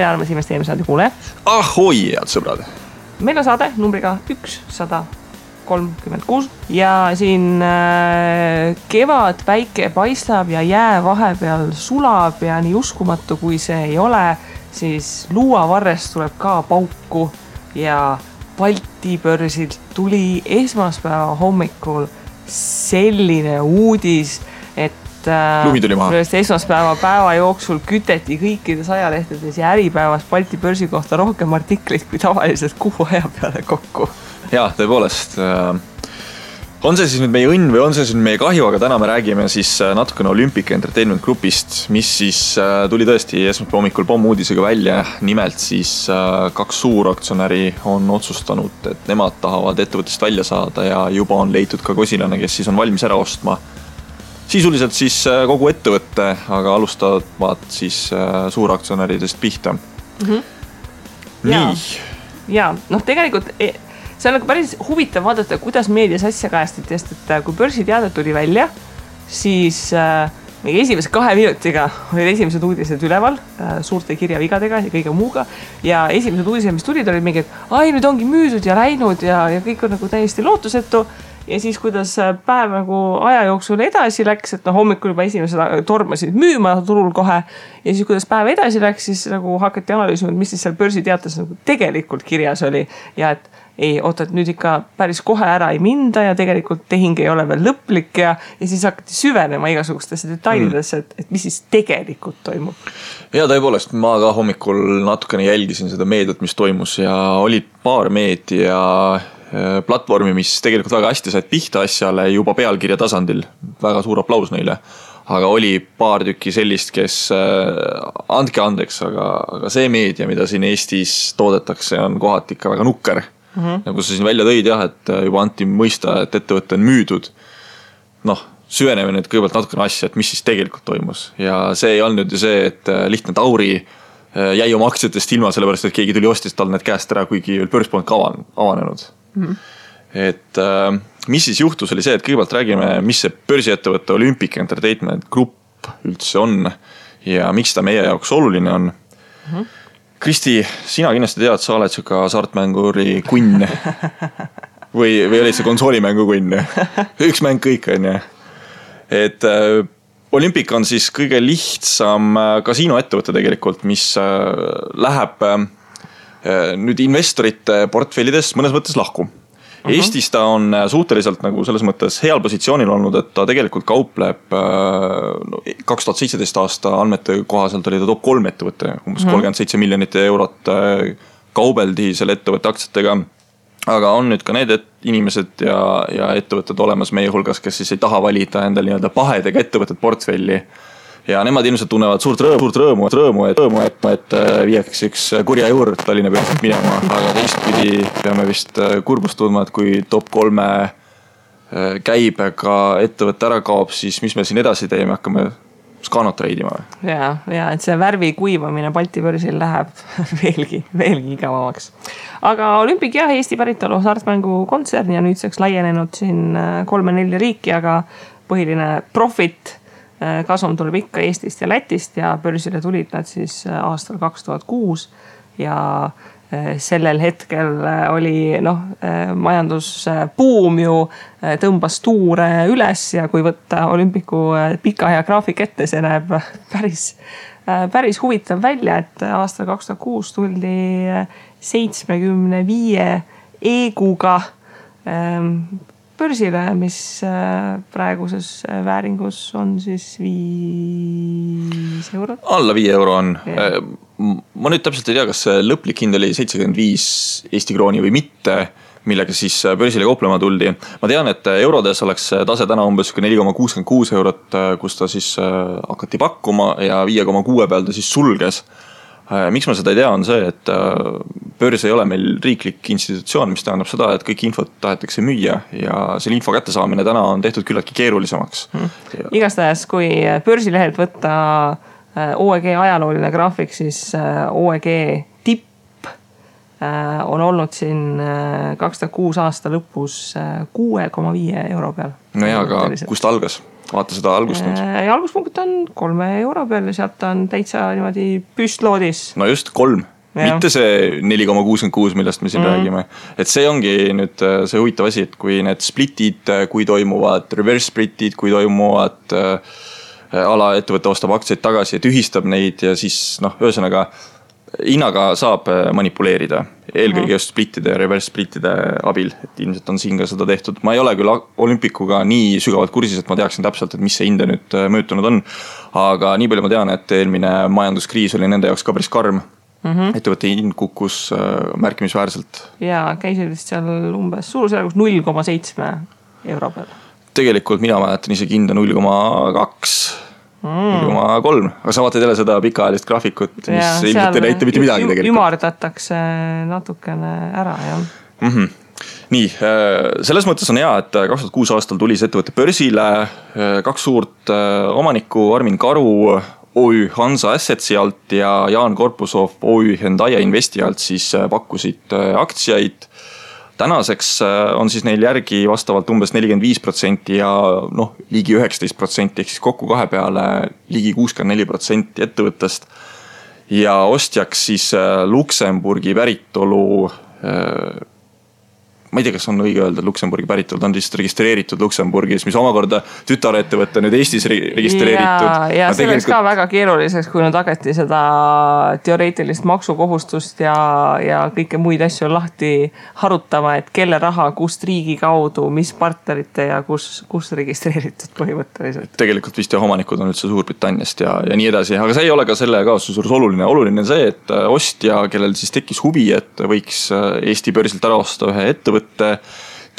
armas investeerimissaade kuule. Ahoi, head sõbrad! Meil on saade numbriga 136 ja siin kevad päike paistab ja jää vahepeal sulab ja nii uskumatu kui see ei ole, siis luuavarrest tuleb ka pauku ja Balti börsilt tuli esmaspäeva hommikul selline uudis, et lumi tuli maha. Esmaspäeva päeva jooksul küteti kõikides ajalehtedes ja Äripäevas Balti börsi kohta rohkem artikleid kui tavaliselt kuu aja peale kokku. Jaa, tõepoolest. On see siis nüüd meie õnn või on see siis meie kahju, aga täna me räägime siis natukene Olympic Entertainment Groupist, mis siis tuli tõesti esmaspäeva hommikul pommuudisega välja. Nimelt siis 2 suuraktsionäri on otsustanud, et nemad tahavad ettevõttest välja saada ja juba on leitud ka kosilane, kes siis on valmis ära ostma sisuliselt siis kogu ettevõtte, aga alustavad siis suuraktsionäridest pihta. Nii. Ja, tegelikult see on päris huvitav vaadata, kuidas meedias asja kajastati, sest et kui börsiteade tuli välja, siis meie esimese 2 minutiga olid esimesed uudised üleval suurte kirjavigadega ja kõige muuga. Ja esimesed uudised, mis tulid, olid mingi, et nüüd ongi müüdud ja läinud ja kõik on nagu täiesti lootusetu. Ja siis, kuidas päev nagu aja jooksul edasi läks, et hommikul juba esimesed tormasid müüma turul kohe. Ja siis, kuidas päev edasi läks, siis nagu hakati analüüsima, mis siis seal börsiteates nagu tegelikult kirjas oli. Ja et et nüüd ikka päris kohe ära ei minda ja tegelikult tehing ei ole veel lõplik ja siis hakati süvenema igasugustesse detailidesse, et mis siis tegelikult toimub. Ja tõepoolest, ma ka hommikul natukene jälgisin seda meediat, mis toimus ja olid paar meedia platvormi, mis tegelikult väga hästi said pihta asjale juba pealkirja tasandil. Väga suur aplaus neile. Aga oli paar tükki sellist, kes andke andeks, aga see meedia, mida siin Eestis toodetakse, on kohati ikka väga nukker. Nagu sa siin välja tõid, jah, et juba anti mõista, et ettevõtte on müüdud. Süveneme nüüd kõigepealt natukene asja, et mis siis tegelikult toimus. Ja see ei olnud ju see, et lihtne Tauri jäi oma aktsiatest ilma, sellepärast, et keegi tuli ostis tal need käest ära, kuigi börs polnud ka avanenud. Et mis siis juhtus oli see, et kõigepealt räägime, mis see börsiettevõtte Olympic Entertainment Group üldse on ja miks ta meie jaoks oluline on. Kristi, sina kindlasti tead, sa oled siuka saartmänguri kunn või olid see konsoolimängu kunn? Üks mäng kõik on ja. Et Olympic on siis kõige lihtsam kasiinoettevõte tegelikult, mis läheb nüüd investorite portfellidest mõnes mõttes lahku. Eestis ta on suhteliselt nagu selles mõttes heal positsioonil olnud, et ta tegelikult kaupleb 2017 aasta andmete kohaselt oli ta top 3 ettevõte, umbes 37 miljonit eurot kaubeldi selle ettevõtte aktsiatega. Aga on nüüd ka need inimesed ja ettevõtted olemas meie hulgas, kes siis ei taha valida endal nii-öelda pahedega ettevõtted portfelli. Ja nemad ilmselt tunnevad suurt rõõmu, et viieks üks kurja juurde Tallinna pealt minema, aga teistpidi peame vist kurbust tundma, et kui top 3 käibega ettevõtte ära kaob, siis mis me siin edasi teeme, hakkame skaanot reidima. Ja, et see värvi kuivamine Balti börsil läheb veelgi igavamaks. Aga Olympic jah, Eesti päritolu hasartmängu kontsern ja nüüdseks laienenud siin 3-4 riiki, aga põhiline profit kasum tuleb ikka Eestist ja Lätist ja börsile tulid nad siis aastal 2006 ja sellel hetkel oli majandusbuum ju tõmbas tuure üles ja kui võtta Olympicu pika ja graafik ette, see näeb päris huvitav välja, et aastal 2006 tuldi 75 eeguga börsile, mis praeguses vääringus on siis 5 eurot. Alla 5 euro on. Yeah. Ma nüüd täpselt ei tea, kas lõplik hind oli 75 Eesti krooni või mitte, millega siis börsile kauplema tuldi. Ma tean, et eurodes oleks tase täna umbes 4,66 eurot, kus ta siis hakati pakkuma ja 5,6 peal ta siis sulges. Miks ma seda ei tea, on see, et börs ei ole meil riiklik institutsioon, mis tähendab seda, et kõik infot tahetakse müüa ja selle info kättesaamine täna on tehtud küllaltki keerulisemaks. Igastahes, kui börsilehelt võtta OEG ajalooline graafik, siis OEG tipp on olnud siin 2006 aasta lõpus 6,5 euro peal. No ja, aga kust algas? vaata seda algust nüüd. Ja alguspunkt on 3 euro peal ja sealt on täitsa niimoodi püstloodis. No just 3. Mitte see 4,66, millest me siin räägime. Et see ongi nüüd see huvitav asi, et kui need splitid, kui toimuvad reverse splitid, kui toimuvad alaettevõtte ostab aktsiaid tagasi ja tühistab neid ja siis ühesõnaga hinnaga saab manipuleerida. Eelkõige just splittide ja reverse splittide abil, et ilmselt on siin ka seda tehtud. Ma ei ole küll olümpikuga nii sügavalt kursis, et ma teaksin täpselt, et mis see hinde nüüd mõjutunud on. Aga nii palju ma tean, et eelmine majanduskriis oli nende jaoks ka päris karm. Ettevõtte hind kukkus märkimisväärselt. Ja käisid vist seal umbes suurusjärgus 0,7 euro peal. Tegelikult mina mäletan isegi hinda 0,2, 0,3. Aga sa vaatad jälle seda pikaajalist graafikut, mis ilmselt ei näita mitte midagi tegelikult. Ümardatakse natukene ära, jah. Nii, selles mõttes on hea, et 2006 aastal tuli see ettevõtte börsile. 2 suurt omanikku, Armin Karu OÜ Hansa Assetsi alt ja Jaan Korpusov OÜ Hendaia Investi alt siis pakkusid aktsiaid. Tänaseks on siis neil järgi vastavalt umbes 45% ja ligi 19%, ehk siis kokku 2 peale ligi 64% ettevõttest. Ja ostjaks siis Luksemburgi päritolu, ma ei tea, kas on õige öelda Luksemburgi päritolu, ta on lihtsalt registreeritud Luksemburgis, mis omakorda tütarettevõtte nüüd Eestis registreeritud. Ja see oleks ka väga keeruliseks, kui nüüd hakati seda teoreetilist maksukohustust ja kõike muid asju lahti harutama, et kelle raha, kust riigi kaudu, mis partnerite ja kus registreeritud põhimõtteliselt. Tegelikult vist ja omanikud on üldse Suurbritanniast ja nii edasi, aga see ei ole ka selle kaasuse suures oluline. Oluline on see, et ostja, kellel siis tekkis huvi, et võiks Eesti börsilt ära osta ühe ettevõtte,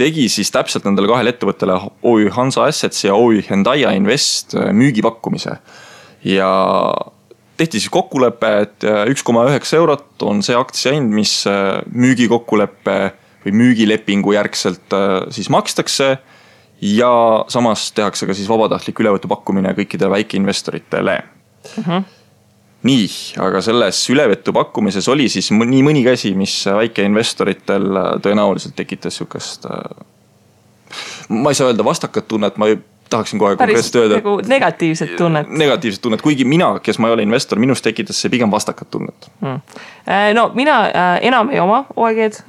tegi siis täpselt nendele 2 ettevõttele OÜ Hansa Assets ja OÜ Hendaia Invest müügipakkumise. Ja tehti siis kokkulepe, et 1,9 eurot on see aktsiahind, mis müügikokkuleppe või müügilepingu järgselt siis makstakse ja samas tehakse ka siis vabatahtlik ülevõtu pakkumine kõikidele väikeinvestoritele. Nii, aga selles ülevõtu pakkumises oli siis nii mõnigi asi, mis väikeinvestoritel tõenäoliselt tekitas sükast, ma ei saa öelda vastakat tunnet, ma tahaksin kohe konkreetselt öelda. Päris negatiivset tunnet. Negatiivset tunnet, kuigi mina, kes ma ei ole investor, minust tekitas see pigem vastakat tunnet. No mina enam ei oma OEG-d,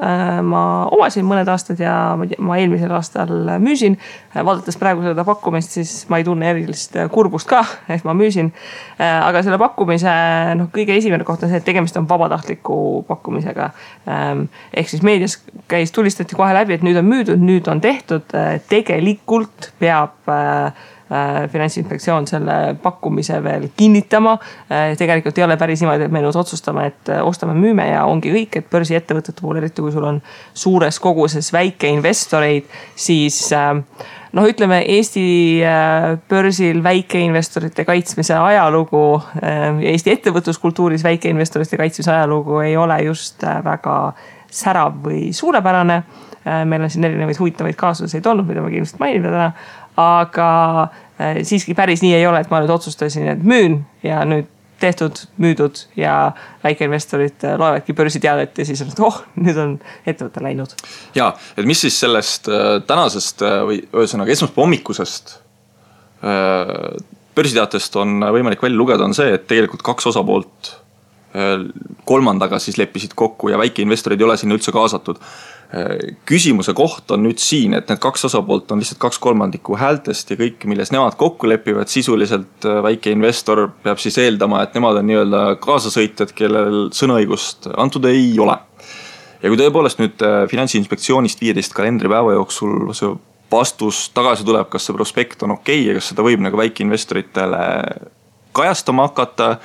ma omasin mõned aastad ja ma eelmisel aastal müüsin. Vaadates praegu seda pakkumist, siis ma ei tunne erilist kurbust ka, et ma müüsin. Aga selle pakkumise kõige esimene koht on see, et tegemist on vabatahtliku pakkumisega. Ehk siis meedias tulistati kohe läbi, et nüüd on müüdud, nüüd on tehtud. Tegelikult peab Finantsinspektsioon selle pakkumise veel kinnitama. Tegelikult ei ole päris niimoodi, et me nüüd otsustame, et ostame müüme ja ongi kõik, et börsiettevõtete puhul, eriti kui sul on suures koguses väikeinvestoreid, siis ütleme Eesti börsil väikeinvestorite kaitsmise ajalugu ja Eesti ettevõtluskultuuris väikeinvestorite kaitsmise ajalugu ei ole just väga särav või suurepärane. Meil on siin erinevaid huvitavaid kaasuseid olnud, mida ma kindlasti mainime täna, aga siiski päris nii ei ole, et ma nüüd otsustasin, et müün ja nüüd tehtud, müüdud ja väikeinvestorid loevadki börsiteadet ja siis on, nüüd on ettevõte läinud. Ja, et mis siis sellest tänasest või ühesõnaga esmaspäeva hommikusest börsiteatest on võimalik välja lugeda, on see, et tegelikult 2 osapoolt kolmandaga siis leppisid kokku ja väikeinvestorid ei ole sinna üldse kaasatud. Küsimuse koht on nüüd siin, et need 2 osapoolt on lihtsalt 2/3 häältest ja kõik, milles nemad kokku lepivad, sisuliselt väikeinvestor peab siis eeldama, et nemad on nii-öelda kaasasõitjad, kellel sõnaõigust antud ei ole. Ja kui tõepoolest nüüd Finantsinspektsioonist 15 kalendripäeva jooksul see vastus tagasi tuleb, kas see prospekt on okei ja kas seda võib nagu väikeinvestoritele kajastama hakata,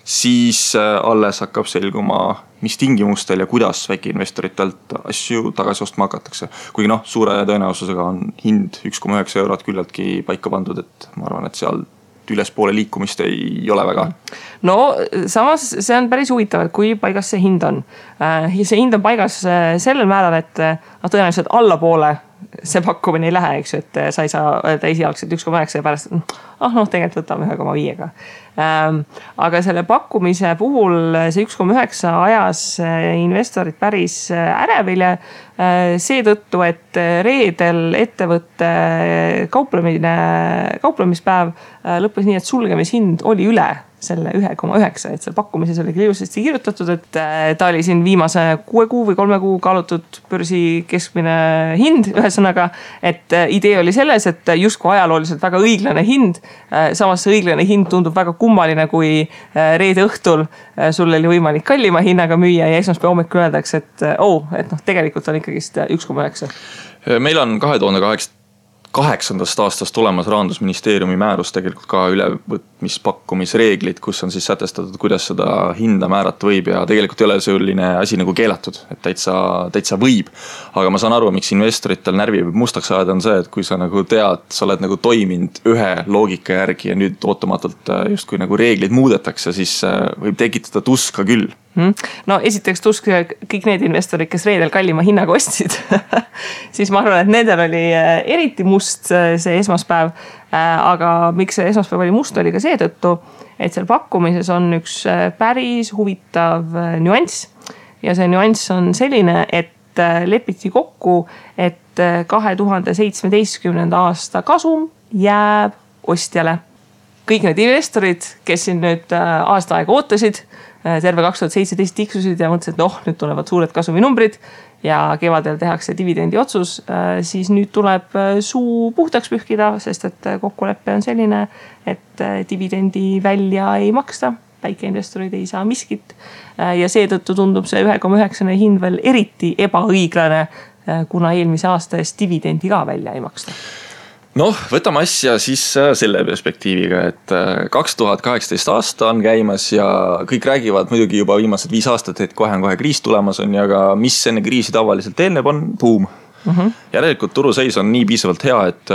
siis alles hakkab selguma, mis tingimustel ja kuidas väikeinvestoritelt asju tagasi ostma hakatakse. Kuigi suure tõenäosusega on hind 1,9 eurot küllaltki paika pandud, et ma arvan, et seal ülespoole liikumist ei ole väga. No samas see on päris huvitav, et kui paigas see hind on. See hind on paigas sellel määral, et tõenäoliselt allapoole see pakkumine ei lähe, eks ju, et sa ei saa öelda esialgselt 1,9 ja pärast, tegelikult võtame 1,5-ga. Aga selle pakkumise puhul see 1,9 ajas investorid päris ärevile seetõttu, et reedel ettevõtte kauplemispäev lõppes nii, et sulgemishind oli üle selle 1,9, et seal pakkumises oli ilusasti kirjutatud, et ta oli siin viimase 6 kuu või 3 kuu kaalutud börsi keskmine hind, ühesõnaga, et idee oli selles, et justkui ajalooliselt väga õiglane hind, samas see õiglane hind tundub väga kummaline, kui reede õhtul sul oli võimalik kallima hinnaga müüa ja esmaspäeva hommikul öeldakse, et tegelikult on ikkagist 1,9. Meil on 2008. aastast olemas Rahandusministeeriumi määrus tegelikult ka ülevõtmispakkumisreeglid, kus on siis sätestatud, kuidas seda hinda määrata võib ja tegelikult ei ole selline asi nagu keelatud, et täitsa võib. Aga ma saan aru, miks investoritel närvi võib mustaks ajada on see, et kui sa nagu tead, sa oled nagu toiminud ühe loogika järgi ja nüüd ootamatult justkui nagu reeglid muudetakse, siis võib tekitada tuska küll. No esiteks tusk kõik need investorid, kes reedel kallima hinnaga ostsid, siis ma arvan, et nendel oli eriti must see esmaspäev, aga miks see esmaspäev oli must, oli ka seetõttu, et seal pakkumises on üks päris huvitav nüanss ja see nüanss on selline, et lepiti kokku, et 2017. aasta kasum jääb ostjale. Kõik need investorid, kes siin nüüd aasta aega ootasid, terve 2017 tiksusid ja mõtlesid, et nüüd tulevad suured kasuminumbrid ja kevadel tehakse dividendi otsus, siis nüüd tuleb suu puhtaks pühkida, sest et kokkulepe on selline, et dividendi välja ei maksta, väikeinvestorid ei saa miskit ja seetõttu tundub see 1,9 hind veel eriti ebaõiglane, kuna eelmise aasta eest dividendi ka välja ei maksta. Võtame asja siis selle perspektiiviga, et 2018 aasta on käimas ja kõik räägivad muidugi juba viimased 5 aastat, et kohe kriis tulemas on ja ka mis enne kriisi tavaliselt eelneb on buum. Järelikult turuseis on nii piisavalt hea, et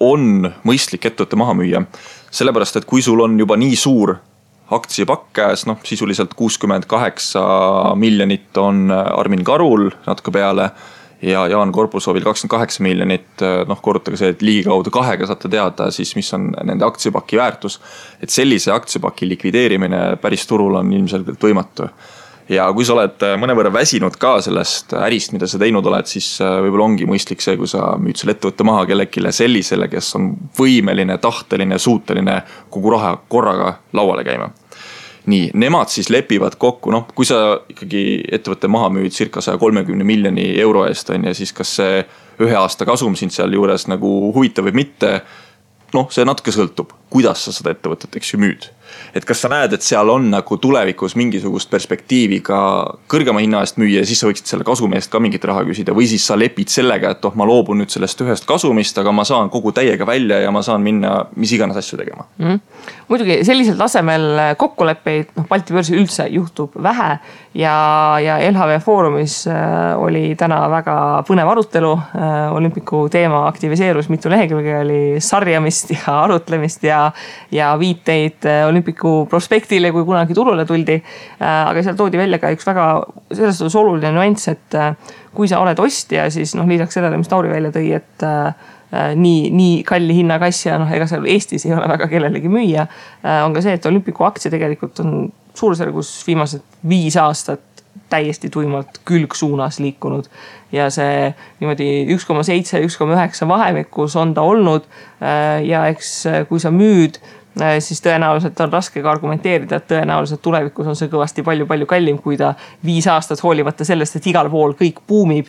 on mõistlik ettevõtte maha müüa. Sellepärast, et kui sul on juba nii suur aktsiapakk käes, sisuliselt 68 miljonit on Armin Karul natuke peale ja Jaan Korpusovil 28 miljonit, korrutage see, et ligikaudu 2-ga saate teada, siis mis on nende aktsiapaki väärtus. Et sellise aktsiapaki likvideerimine päris turul on ilmselgelt võimatu. Ja kui sa oled mõnevõrra väsinud ka sellest ärist, mida sa teinud oled, siis võib-olla ongi mõistlik see, kui sa müüd selle ettevõtte maha kellelegi sellisele, kes on võimeline, tahteline, suuteline kogu raha korraga lauale käima. Nii, nemad siis lepivad kokku, kui sa ikkagi ettevõtte maha müüd circa 130 miljoni euro eest on ja siis kas see 1 aasta kasum sind seal juures nagu huvitav või mitte, see natuke sõltub, kuidas sa seda ettevõtet müüd. Et kas sa näed, et seal on nagu tulevikus mingisugust perspektiivi ka kõrgema hinna eest müüa ja siis sa võiksid selle kasumi eest ka mingit raha küsida või siis sa lepid sellega, et ma loobun nüüd sellest ühest kasumist, aga ma saan kogu täiega välja ja ma saan minna mis iganes asju tegema. Muidugi sellisel tasemel kokkuleppeid Balti börsi üldse juhtub vähe ja LHV Foorumis oli täna väga põnev arutelu. Olümpiku teema aktiviseerus, mitu lehekülge oli sarjamist ja arutlemist ja viiteid Olümpiku prospektile, kui kunagi turule tuldi. Aga seal toodi välja ka üks väga selles oluline nüanss, et kui sa oled ostja, siis lisaks sellele, mis Tauri välja tõi, et nii kalli hinnaga asja, ega seal Eestis ei ole väga kellelegi müüa, on ka see, et Olümpiku aktsia tegelikult on suurusjärgus viimased 5 aastat täiesti tuimalt külgsuunas liikunud ja see niimoodi 1,7, 1,9 vahemikus on ta olnud ja eks kui sa müüd, siis tõenäoliselt on raske ka argumenteerida, et tõenäoliselt tulevikus on see kõvasti palju kallim, kui ta 5 aastat hoolivata sellest, et igal pool kõik buumib,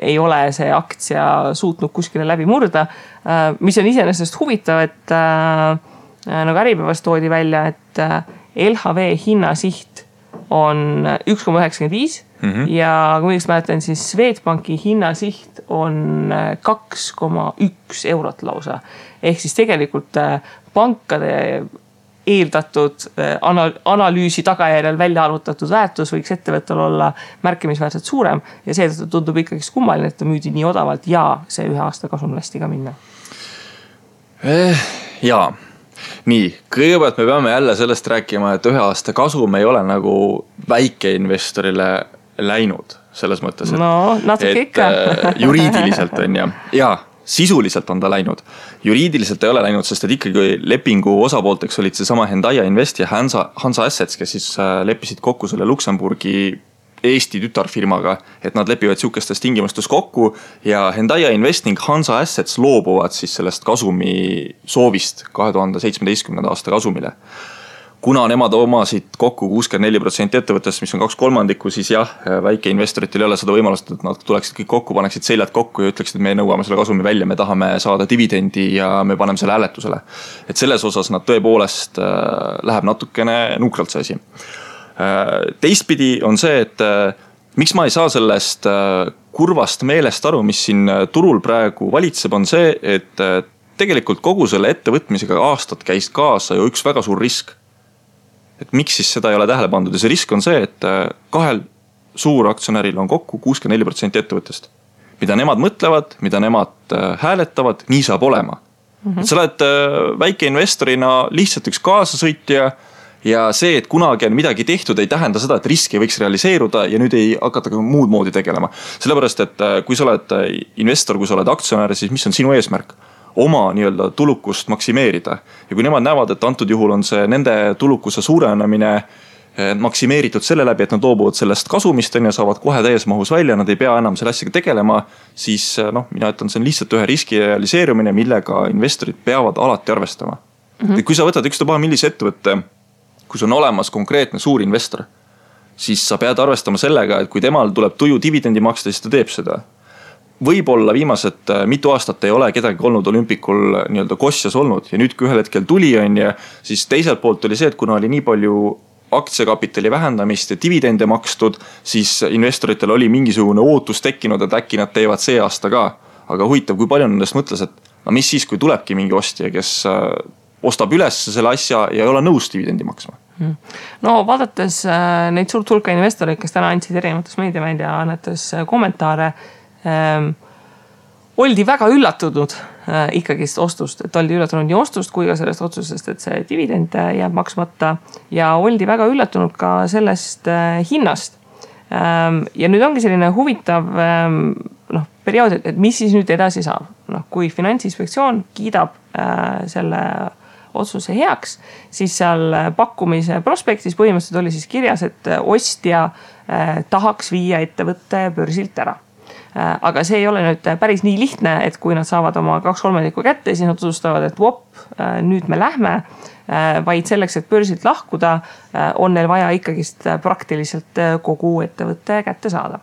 ei ole see aktsia suutnud kuskile läbi murda. Mis on iseenesest huvitav, et nagu Äripäevas toodi välja, et LHV hinnasiht on 1,95 ja kui õigesti mäletan, siis Swedbanki hinnasiht on 2,1 eurot lausa. Ehk siis tegelikult pankade eeldatud analüüsi tagajärjel välja arvutatud väärtus võiks ettevõttel olla märkimisväärselt suurem ja seetõttu tundub ikkagi kummaline, et ta müüdi nii odavalt ja see 1 aasta kasum lasti ka minna. Jaa. Nii, kõigepealt me peame jälle sellest rääkima, et 1 aasta kasum ei ole nagu väikeinvestorile läinud selles mõttes, et, no, et juriidiliselt on ja sisuliselt on ta läinud. Juriidiliselt ei ole läinud, sest et ikkagi lepingu osapoolteks olid seesama Hendaia Invest ja Hansa Assets, kes siis leppisid kokku selle Luksemburgi Eesti tütarfirmaga, et nad lepivad siukestes tingimustes kokku ja Hendaia Invest ning Hansa Assets loobuvad siis sellest kasumi soovist 2017. aasta kasumile. Kuna nemad omasid kokku 64% ettevõttest, mis on 2/3, siis jah, väikeinvestoritel ei ole seda võimalust, et nad tuleksid kõik kokku, paneksid seljad kokku ja ütleksid, et me nõuame selle kasumi välja, me tahame saada dividendi ja me paneme selle hääletusele. Et selles osas nad tõepoolest läheb natukene nukralt see asi. Teistpidi on see, et miks ma ei saa sellest kurvast meelest aru, mis siin turul praegu valitseb, on see, et tegelikult kogu selle ettevõtmisega aastat käis kaasa ju üks väga suur risk. Et miks siis seda ei ole tähele pandud ja see risk on see, et kahel suuraktsionäril on kokku 64% ettevõttest. Mida nemad mõtlevad, mida nemad hääletavad, nii saab olema. Sa oled väikeinvestorina lihtsalt üks kaasasõitja ja see, et kunagi on midagi tehtud, ei tähenda seda, et risk ei võiks realiseeruda ja nüüd ei hakata ka muud moodi tegelema. Sellepärast, et kui sa oled investor, kui sa oled aktsionär, siis mis on sinu eesmärk? Oma nii-öelda tulukust maksimeerida. Ja kui nemad näevad, et antud juhul on see nende tulukuse suurenemine maksimeeritud selle läbi, et nad loobuvad sellest kasumist ja saavad kohe täies mahus välja, nad ei pea enam selle asjaga tegelema, siis mina ütlen, see on lihtsalt ühe riski realiseerumine, millega investorid peavad alati arvestama. Kui sa võtad ükstapuha millise ettevõtte, kui on olemas konkreetne suur investor, siis sa pead arvestama sellega, et kui temal tuleb tuju dividendi maksta, siis ta teeb seda. Võib-olla viimased mitu aastat ei ole kedagi olnud olümpikul nii-öelda kosjas olnud ja nüüd kui ühel hetkel tuli on ja siis teiselt poolt oli see, et kuna oli nii palju aktsiakapitali vähendamist ja dividende makstud, siis investoritel oli mingisugune ootus tekkinud, et äkki nad teevad see aasta ka. Aga huvitav, kui palju nendest mõtles, et no mis siis, kui tulebki mingi ostja, kes ostab üles selle asja ja ei ole nõus dividendi maksma. No vaadates neid suurt hulka investoreid, kes täna andsid erinevates meediaväljaannetes kommentaare, oldi väga üllatunud ikkagist ostust, et oldi üllatunud nii ostust kui ka sellest otsusest, et see dividend jääb maksmata ja oldi väga üllatunud ka sellest hinnast. Ja nüüd ongi selline huvitav periood, et mis siis nüüd edasi saab. Kui Finantsinspektsioon kiidab selle otsuse heaks, siis seal pakkumise prospektis põhimõtteliselt oli siis kirjas, et ostja tahaks viia ettevõtte börsilt ära. Aga see ei ole nüüd päris nii lihtne, et kui nad saavad oma 2/3 kätte, siis nad otsustavad, et nüüd me lähme, vaid selleks, et börsilt lahkuda, on neil vaja ikkagist praktiliselt kogu ettevõtte kätte saada.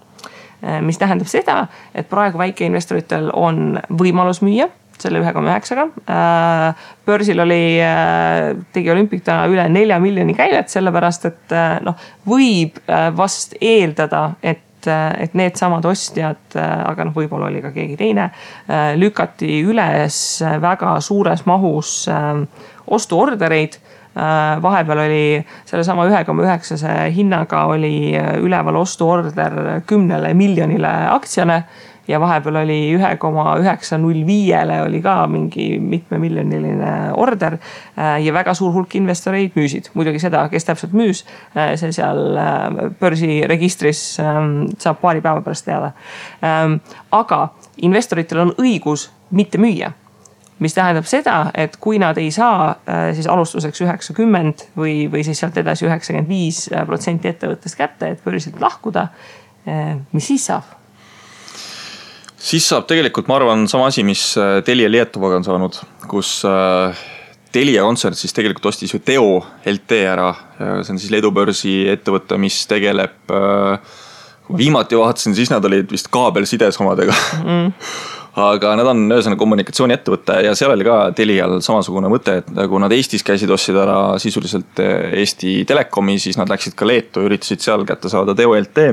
Mis tähendab seda, et praegu väikeinvestoritel on võimalus müüa selle 1,9-ga. Börsil tegi Olümpik täna üle 4 miljoni käivet, sellepärast, et võib vast eeldada, et need samad ostjad, aga võib-olla oli ka keegi teine, lükati üles väga suures mahus ostuordereid. Vahepeal oli selle sama 1,9 hinnaga oli üleval ostuorder 10 miljonile aktsiale ja vahepeal oli 1,905 oli ka mingi mitme miljoniline order ja väga suur hulk investoreid müüsid. Muidugi seda, kes täpselt müüs, see seal börsiregistris saab paari päeva pärast teada. Aga investoritel on õigus mitte müüa, mis tähendab seda, et kui nad ei saa siis alustuseks 90 või siis sealt edasi 95% ettevõttest kätte, et börsilt lahkuda, mis siis saab? Siis saab tegelikult, ma arvan, sama asi, mis Telia Lietovaga on saanud, kus Telia kontsern siis tegelikult ostis ju Teo LT ära. See on siis Leedu börsi ettevõte, mis tegeleb, viimati vaatasin, siis nad olid vist kaabelsides omadega. Aga nad on ühesõnaga kommunikatsiooniettevõte ja seal oli ka Telial samasugune mõte, et kui nad Eestis käisid ostsid ära sisuliselt Eesti Telekomi, siis nad läksid ka Leetu ja üritasid seal kätte saada Teo LT.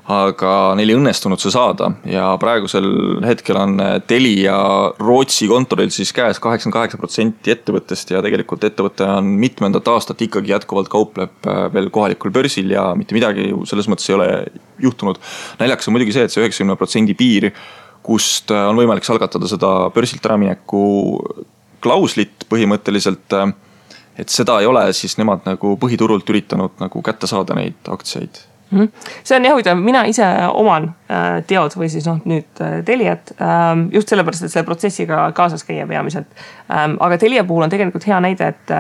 Aga neil ei õnnestunud see saada ja praegusel hetkel on Telia Rootsi kontoril siis käes 88% ettevõttest ja tegelikult ettevõte on mitmendat aastat ikkagi jätkuvalt kaupleb veel kohalikul börsil ja mitte midagi selles mõttes ei ole juhtunud. Näljaks on muidugi see, et see 90% piir, kust on võimalik algatada seda börsilt äramineku klauslit põhimõtteliselt, et seda ei ole siis nemad nagu põhiturult üritanud nagu kätte saada neid aktsiaid. See on jah huvitav, mina ise oman Teod või siis nüüd Teliat just sellepärast, et selle protsessiga kaasas käia peamiselt. Aga Telia puhul on tegelikult hea näide, et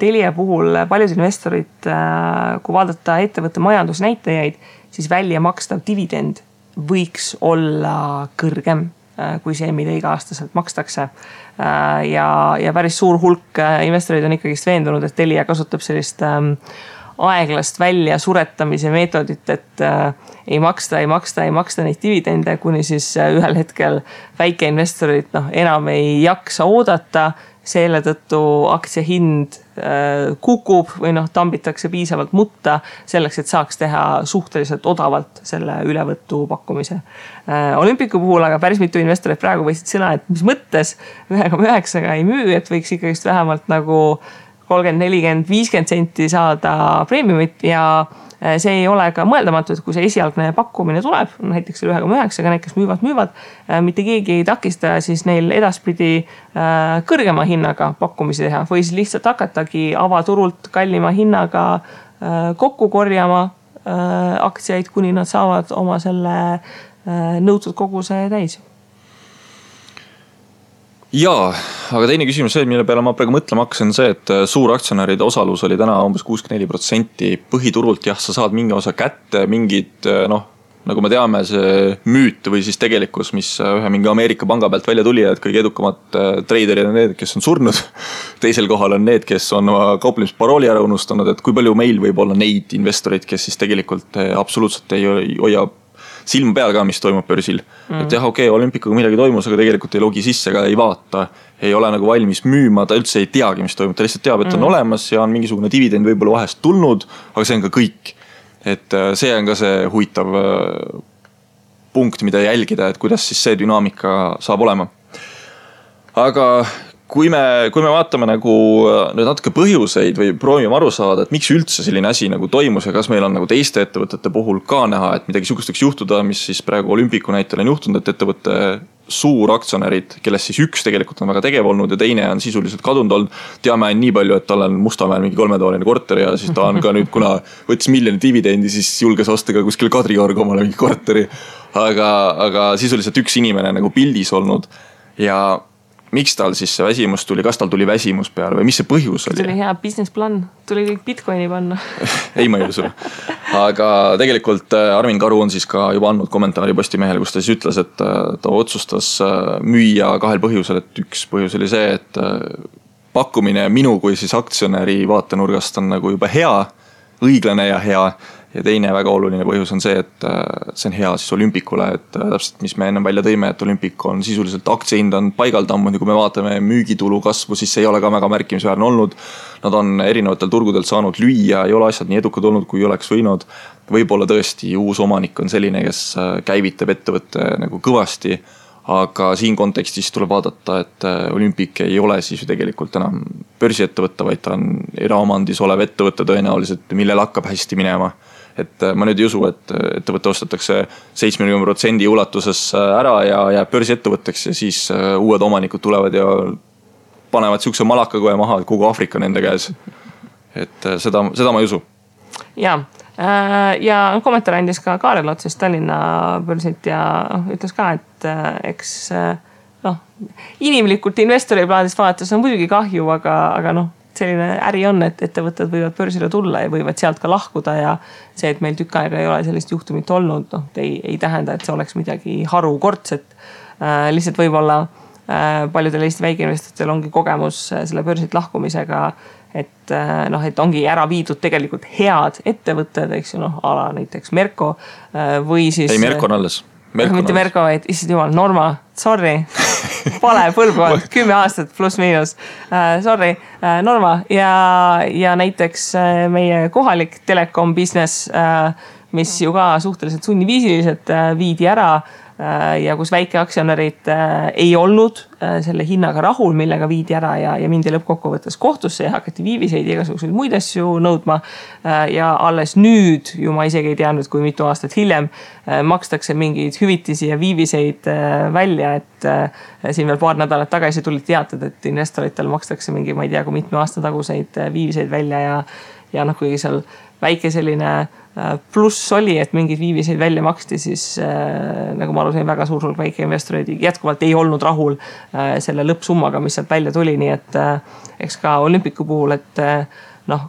Telia puhul paljud investorid, kui vaadata ettevõtte majandusnäitajaid, siis välja makstav dividend võiks olla kõrgem kui see, mida iga-aastaselt makstakse. Ja päris suur hulk investorid on ikkagist veendunud, et Telia kasutab sellist aeglast välja suretamise meetodit, et ei maksta neid dividende, kuni siis ühel hetkel väikeinvestorid enam ei jaksa oodata, selle tõttu aktsia hind kukub või tambitakse piisavalt mutta selleks, et saaks teha suhteliselt odavalt selle ülevõttu pakkumise. Olümpiku puhul aga päris mitu investorit praegu võisid sõna, et mis mõttes 1,9 ei müü, et võiks ikkagist vähemalt nagu 30, 40, 50 senti saada preemiumit ja see ei ole ka mõeldamatu, et kui see esialgne pakkumine tuleb, näiteks 1,9, need, kes müüvad, mitte keegi ei takista siis neil edaspidi kõrgema hinnaga pakkumisi teha või siis lihtsalt hakatagi avaturult kallima hinnaga kokku korjama aktsiaid, kuni nad saavad oma selle nõutud koguse täis. Jaa, aga teine küsimus see, mille peale ma praegu mõtlema hakkasin, see, et suuraktsionäride osalus oli täna umbes 64%. Põhiturult jah, sa saad mingi osa kätte, mingid, nagu me teame, see müüt või siis tegelikkus, mis ühe mingi Ameerika panga pealt välja tuli, et kõige edukamad traderid on need, kes on surnud. Teisel kohal on need, kes on kauplemisparooli ära unustanud, et kui palju meil võib olla neid investoreid, kes siis tegelikult absoluutselt ei hoia silma peal ka, mis toimub börsil. Et jah, Olümpikuga midagi toimus, aga tegelikult ei logi sisse ega ei vaata. Ei ole nagu valmis müüma, ta üldse ei teagi, mis toimub. Ta lihtsalt teab, et on olemas ja on mingisugune dividend võib-olla vahest tulnud, aga see on ka kõik. Et see on ka see huvitav punkt, mida jälgida, et kuidas siis see dünaamika saab olema. Aga kui me vaatame nagu nüüd natuke põhjuseid või proovime aru saada, et miks üldse selline asi nagu toimus ja kas meil on nagu teiste ettevõtete puhul ka näha, et midagi sugusteks juhtuda, mis siis praegu Olümpiku näitel on juhtunud, et ettevõtte suuraktsionärid, kellest siis üks tegelikult on väga tegev olnud ja teine on sisuliselt kadunud olnud. Teame nii palju, et tal on Mustamäel mingi 3-toaline korter ja siis ta on ka nüüd, kuna võttis miljoni dividendi, siis julges osta ka kuskil Kadriorg omale mingi korteri. Aga sisuliselt üks inimene nagu pildis olnud ja miks tal siis see väsimus tuli, kas tal tuli väsimus peale või mis see põhjus oli? Tuli hea business plan, tuli kõik Bitcoini panna. Ei, ma ei usu. Aga tegelikult Armin Karu on siis ka juba andnud kommentaari Postimehele, kus ta siis ütles, et ta otsustas müüa 2 põhjusel, et üks põhjus oli see, et pakkumine minu kui siis aktsionäri vaatenurgast on nagu juba hea, õiglane ja hea. Ja teine väga oluline põhjus on see, et see on hea siis Olümpikule, et täpselt mis me ennem välja tõime, et Olympik on sisuliselt aktsiohind on paigaldammu, kui me vaatame müügitulu kasvu, siis see ei ole ka väga märkimisväärne olnud. Nad on erinevatel turgudel saanud lüüa, ei ole asjad nii edukad olnud, kui oleks võinud. Võib-olla tõesti uus omanik on selline, kes käivitab ettevõtte nagu kõvasti, aga siin kontekstis tuleb vaadata, et Olympik ei ole siis ju tegelikult enam börsiettevõtte, vaid ta on eraomandis olev ettevõtte tõenäoliselt, millel hakkab hästi minema. Et ma nüüd ei usu, et ettevõtte ostetakse 70% ulatuses ära ja jääb börsiettevõtteks ja siis uued omanikud tulevad ja panevad siukse malakakoe maha, et kogu Aafrika nende käes. Et seda ma ei usu. Ja kommentaar andis ka Kaarel Otsest Tallinna börsilt ja ütles ka, et eks inimlikult investori plaadist vaadates on muidugi kahju, aga selline äri on, et ettevõtted võivad börsile tulla ja võivad sealt ka lahkuda ja see, et meil tükk aega ei ole sellist juhtumit olnud, ei tähenda, et see oleks midagi harukordset. Lihtsalt võib-olla paljudel Eesti väikeinvestoritel ongi kogemus selle börsilt lahkumisega, et ongi ära viidud tegelikult head ettevõtted, eks ju, ala näiteks Merko või siis... Ei, Merko on alles. Mitte Merko, vaid issand jumal, Norma, sorry, vale põlvkond, 10 aastat pluss miinus, sorry, Norma ja näiteks meie kohalik telekom business, mis ju ka suhteliselt sunniviisiliselt viidi ära ja kus väikeaktsionärid ei olnud selle hinnaga rahul, millega viidi ära ja mindi lõppkokkuvõttes kohtusse ja hakati viiviseid ja igasuguseid muid asju nõudma ja alles nüüd, ju ma isegi ei teadnud, kui mitu aastat hiljem makstakse mingeid hüvitisi ja viiviseid välja, et siin veel paar nädalat tagasi tulid teated, et investoritel makstakse mingi, ma ei tea, kui mitme aasta taguseid viiviseid välja ja kuigi seal väike selline pluss oli, et mingid viiviseid välja maksti, siis nagu ma aru sain, väga suur hulk väikeinvestoreid jätkuvalt ei olnud rahul selle lõppsummaga, mis sealt välja tuli, nii et eks ka Olympicu puhul, et noh,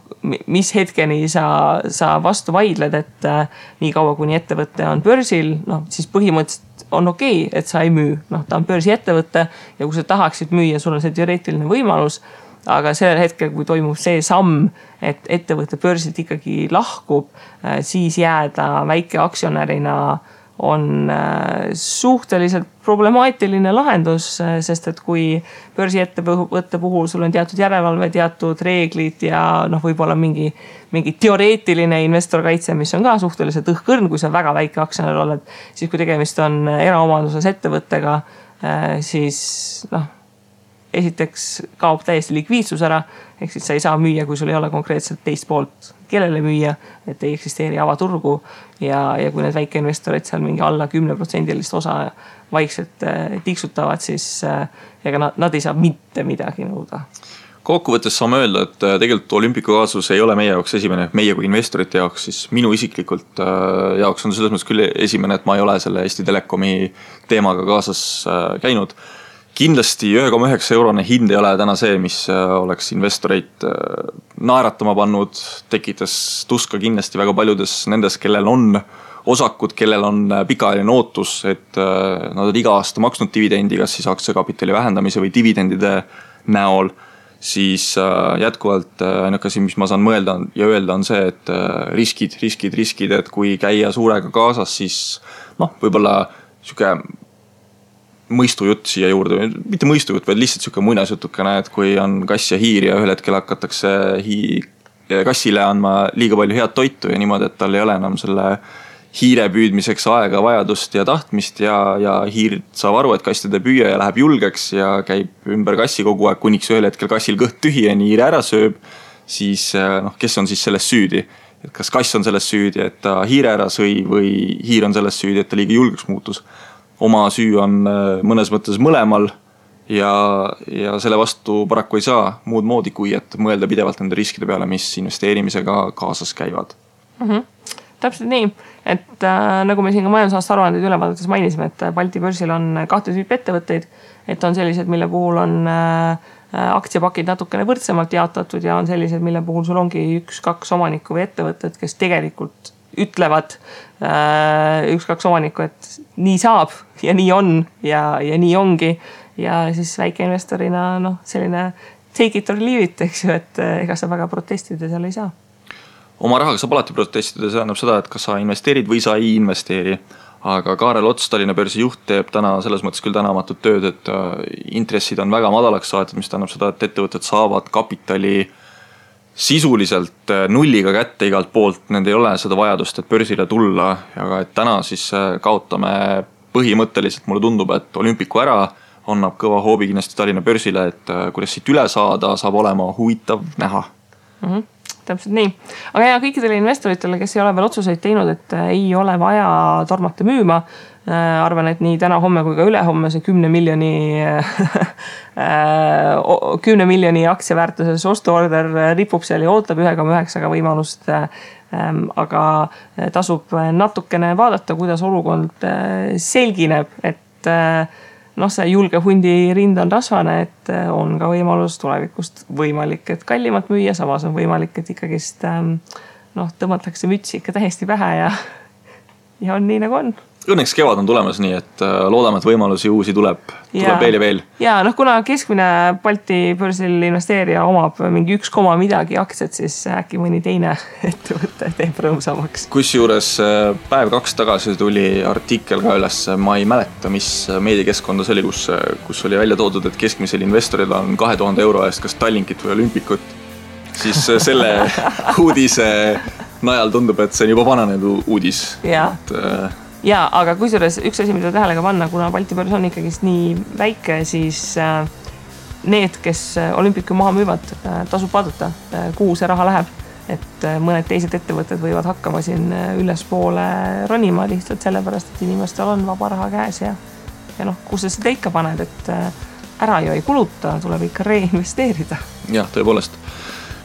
mis hetkeni sa vastu vaidled, et nii kaua kuni ettevõte on börsil, noh, siis põhimõtteliselt on okei, et sa ei müü. Noh, ta on börsi ettevõte ja kui sa tahaksid müüa, sul on see teoreetiline võimalus, aga sellel hetkel, kui toimub see samm, et ettevõte börsilt ikkagi lahkub, siis jääda väike aktsionärina on suhteliselt problemaatiline lahendus, sest et kui börsiettevõtte puhul sul on teatud järelevalve, teatud reeglid ja noh, võib-olla mingi teoreetiline investorkaitse, mis on ka suhteliselt õhkõrn, kui sa väga väike aktsionär oled, siis kui tegemist on eraomanduses ettevõttega, siis noh, esiteks kaob täiesti likviidsus ära, ehk siis sa ei saa müüa, kui sul ei ole konkreetselt teist poolt, kellele müüa, et ei eksisteeri avaturgu ja kui need väikeinvestorid seal mingi alla 10% osa vaikselt tiksutavad, siis ega nad ei saa mitte midagi nõuda. Kokkuvõttes saame öelda, et tegelikult Olympicu kaasus ei ole meie jaoks esimene, meie kui investorite jaoks, siis minu isiklikult jaoks on selles mõttes küll esimene, et ma ei ole selle Eesti Telekomi teemaga kaasas käinud. Kindlasti 1,9 eurone hind ei ole täna see, mis oleks investoreid naeratama pannud, tekitas tuska kindlasti väga paljudes nendes, kellel on osakud, kellel on pikaajaline ootus, et nad on iga aasta maksnud dividendi, kas siis aktsiakapitali vähendamise või dividendide näol, siis jätkuvalt ainuke asi, mis ma saan mõelda ja öelda on see, et riskid, et kui käia suurega kaasas, siis noh, võib-olla siuke mõistujutt siia juurde, mitte mõistujutt, vaid lihtsalt siuke muinasjutukene, et kui on kass ja hiir ja ühel hetkel hakatakse kassile andma liiga palju head toitu ja niimoodi, et tal ei ole enam selle hiire püüdmiseks aega, vajadust ja tahtmist ja hiir saab aru, et kass teda püüa ja läheb julgeks ja käib ümber kassi kogu aeg, kuniks ühel hetkel kassil kõht tühi ja hiire ära sööb, siis noh, kes on siis selles süüdi? Et kas kass on selles süüdi, et ta hiire ära sõi või hiir on selles süüdi, et ta liiga julgeks muutus? Oma süü on mõnes mõttes mõlemal ja selle vastu paraku ei saa muud moodi, kui et mõelda pidevalt nende riskide peale, mis investeerimisega kaasas käivad. Täpselt nii, et nagu me siin ka majandusaasta aruandeid ülevaadates mainisime, et Balti börsil on 2 tüüpi ettevõtteid, et on sellised, mille puhul on aktsiapakid natukene võrdsemalt jaotatud ja on sellised, mille puhul sul ongi 1-2 omanikku või ettevõtted, kes tegelikult ütlevad 1-2 omanikku, et nii saab ja nii on ja nii ongi ja siis väikeinvestorina noh, selline take it or leave it, eks ju, et ega sa väga protestida seal ei saa. Oma rahaga saab alati protestida, see annab seda, et kas sa investeerid või sa ei investeeri, aga Kaarel Ots, Tallinna börsi juht, teeb täna selles mõttes küll tänamatut tööd, et intressid on väga madalaks saatud, mis tähendab seda, et ettevõtted saavad kapitali sisuliselt nulliga kätte igalt poolt, nende ei ole seda vajadust, et börsile tulla, aga et täna siis kaotame põhimõtteliselt, mulle tundub, et Olympicu ära annab kõva hoobi kindlasti Tallinna börsile, et kuidas siit üle saada, saab olema huvitav näha. Täpselt nii. Aga ja kõikidele investoritele, kes ei ole veel otsuseid teinud, et ei ole vaja tormata müüma, arvan, et nii täna homme kui ka ülehomme see 10 miljoni aktsiaväärtuses ostuorder ripub seal ja ootab 1,9 võimalust, aga tasub natukene vaadata, kuidas olukord selgineb, et noh, see julge hundi rind on rasvane, et on ka võimalus tulevikust võimalik, et kallimalt müüa, samas on võimalik, et ikkagist noh, tõmmatakse mütsi ikka täiesti pähe ja on nii nagu on. Õnneks kevad on tulemas nii, et loodame, et võimalusi uusi tuleb veel ja veel. Ja noh, kuna keskmine Balti börsil investeerija omab mingi 1, midagi aktsiat, siis äkki mõni teine ettevõte teeb rõõmsamaks. Kusjuures päev 2 tagasi tuli artikkel ka üles, ma ei mäleta, mis meediakeskkonda see oli, kus oli välja toodud, et keskmisel investoril on 2000 euro eest kas Tallinkit või Olympikut, siis selle uudise najal tundub, et see on juba vananenud uudis. Ja, aga kusjuures üks asi, mida tähelega panna, kuna Balti börs on ikkagist nii väike, siis need, kes Olympicu maha müüvad, tasub vaadata, kuhu see raha läheb. Et mõned teised ettevõtted võivad hakkama siin ülespoole ronima lihtsalt sellepärast, et inimestel on vaba raha käes ja noh, kus sa seda ikka paned, et ära ju ei kuluta, tuleb ikka reinvesteerida. Jah, tõepoolest.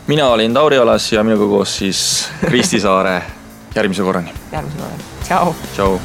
mina olin Tauri Alas ja minuga koos siis Kristi Saare. Järgmise korrani. Tšau. Tšau.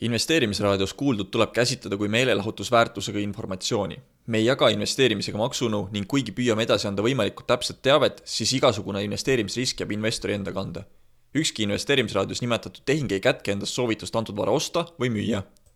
Investeerimisraadios kuuldud tuleb käsitleda kui meelelahutusväärtusega informatsiooni. Me ei jaga investeerimisega maksunu ning kuigi püüame edasi anda võimalikult täpset teavet, siis igasugune investeerimisrisk jääb investori enda kanda. Ükski investeerimisraadios nimetatud tehing ei kätke endast soovitust antud vara osta või müüa.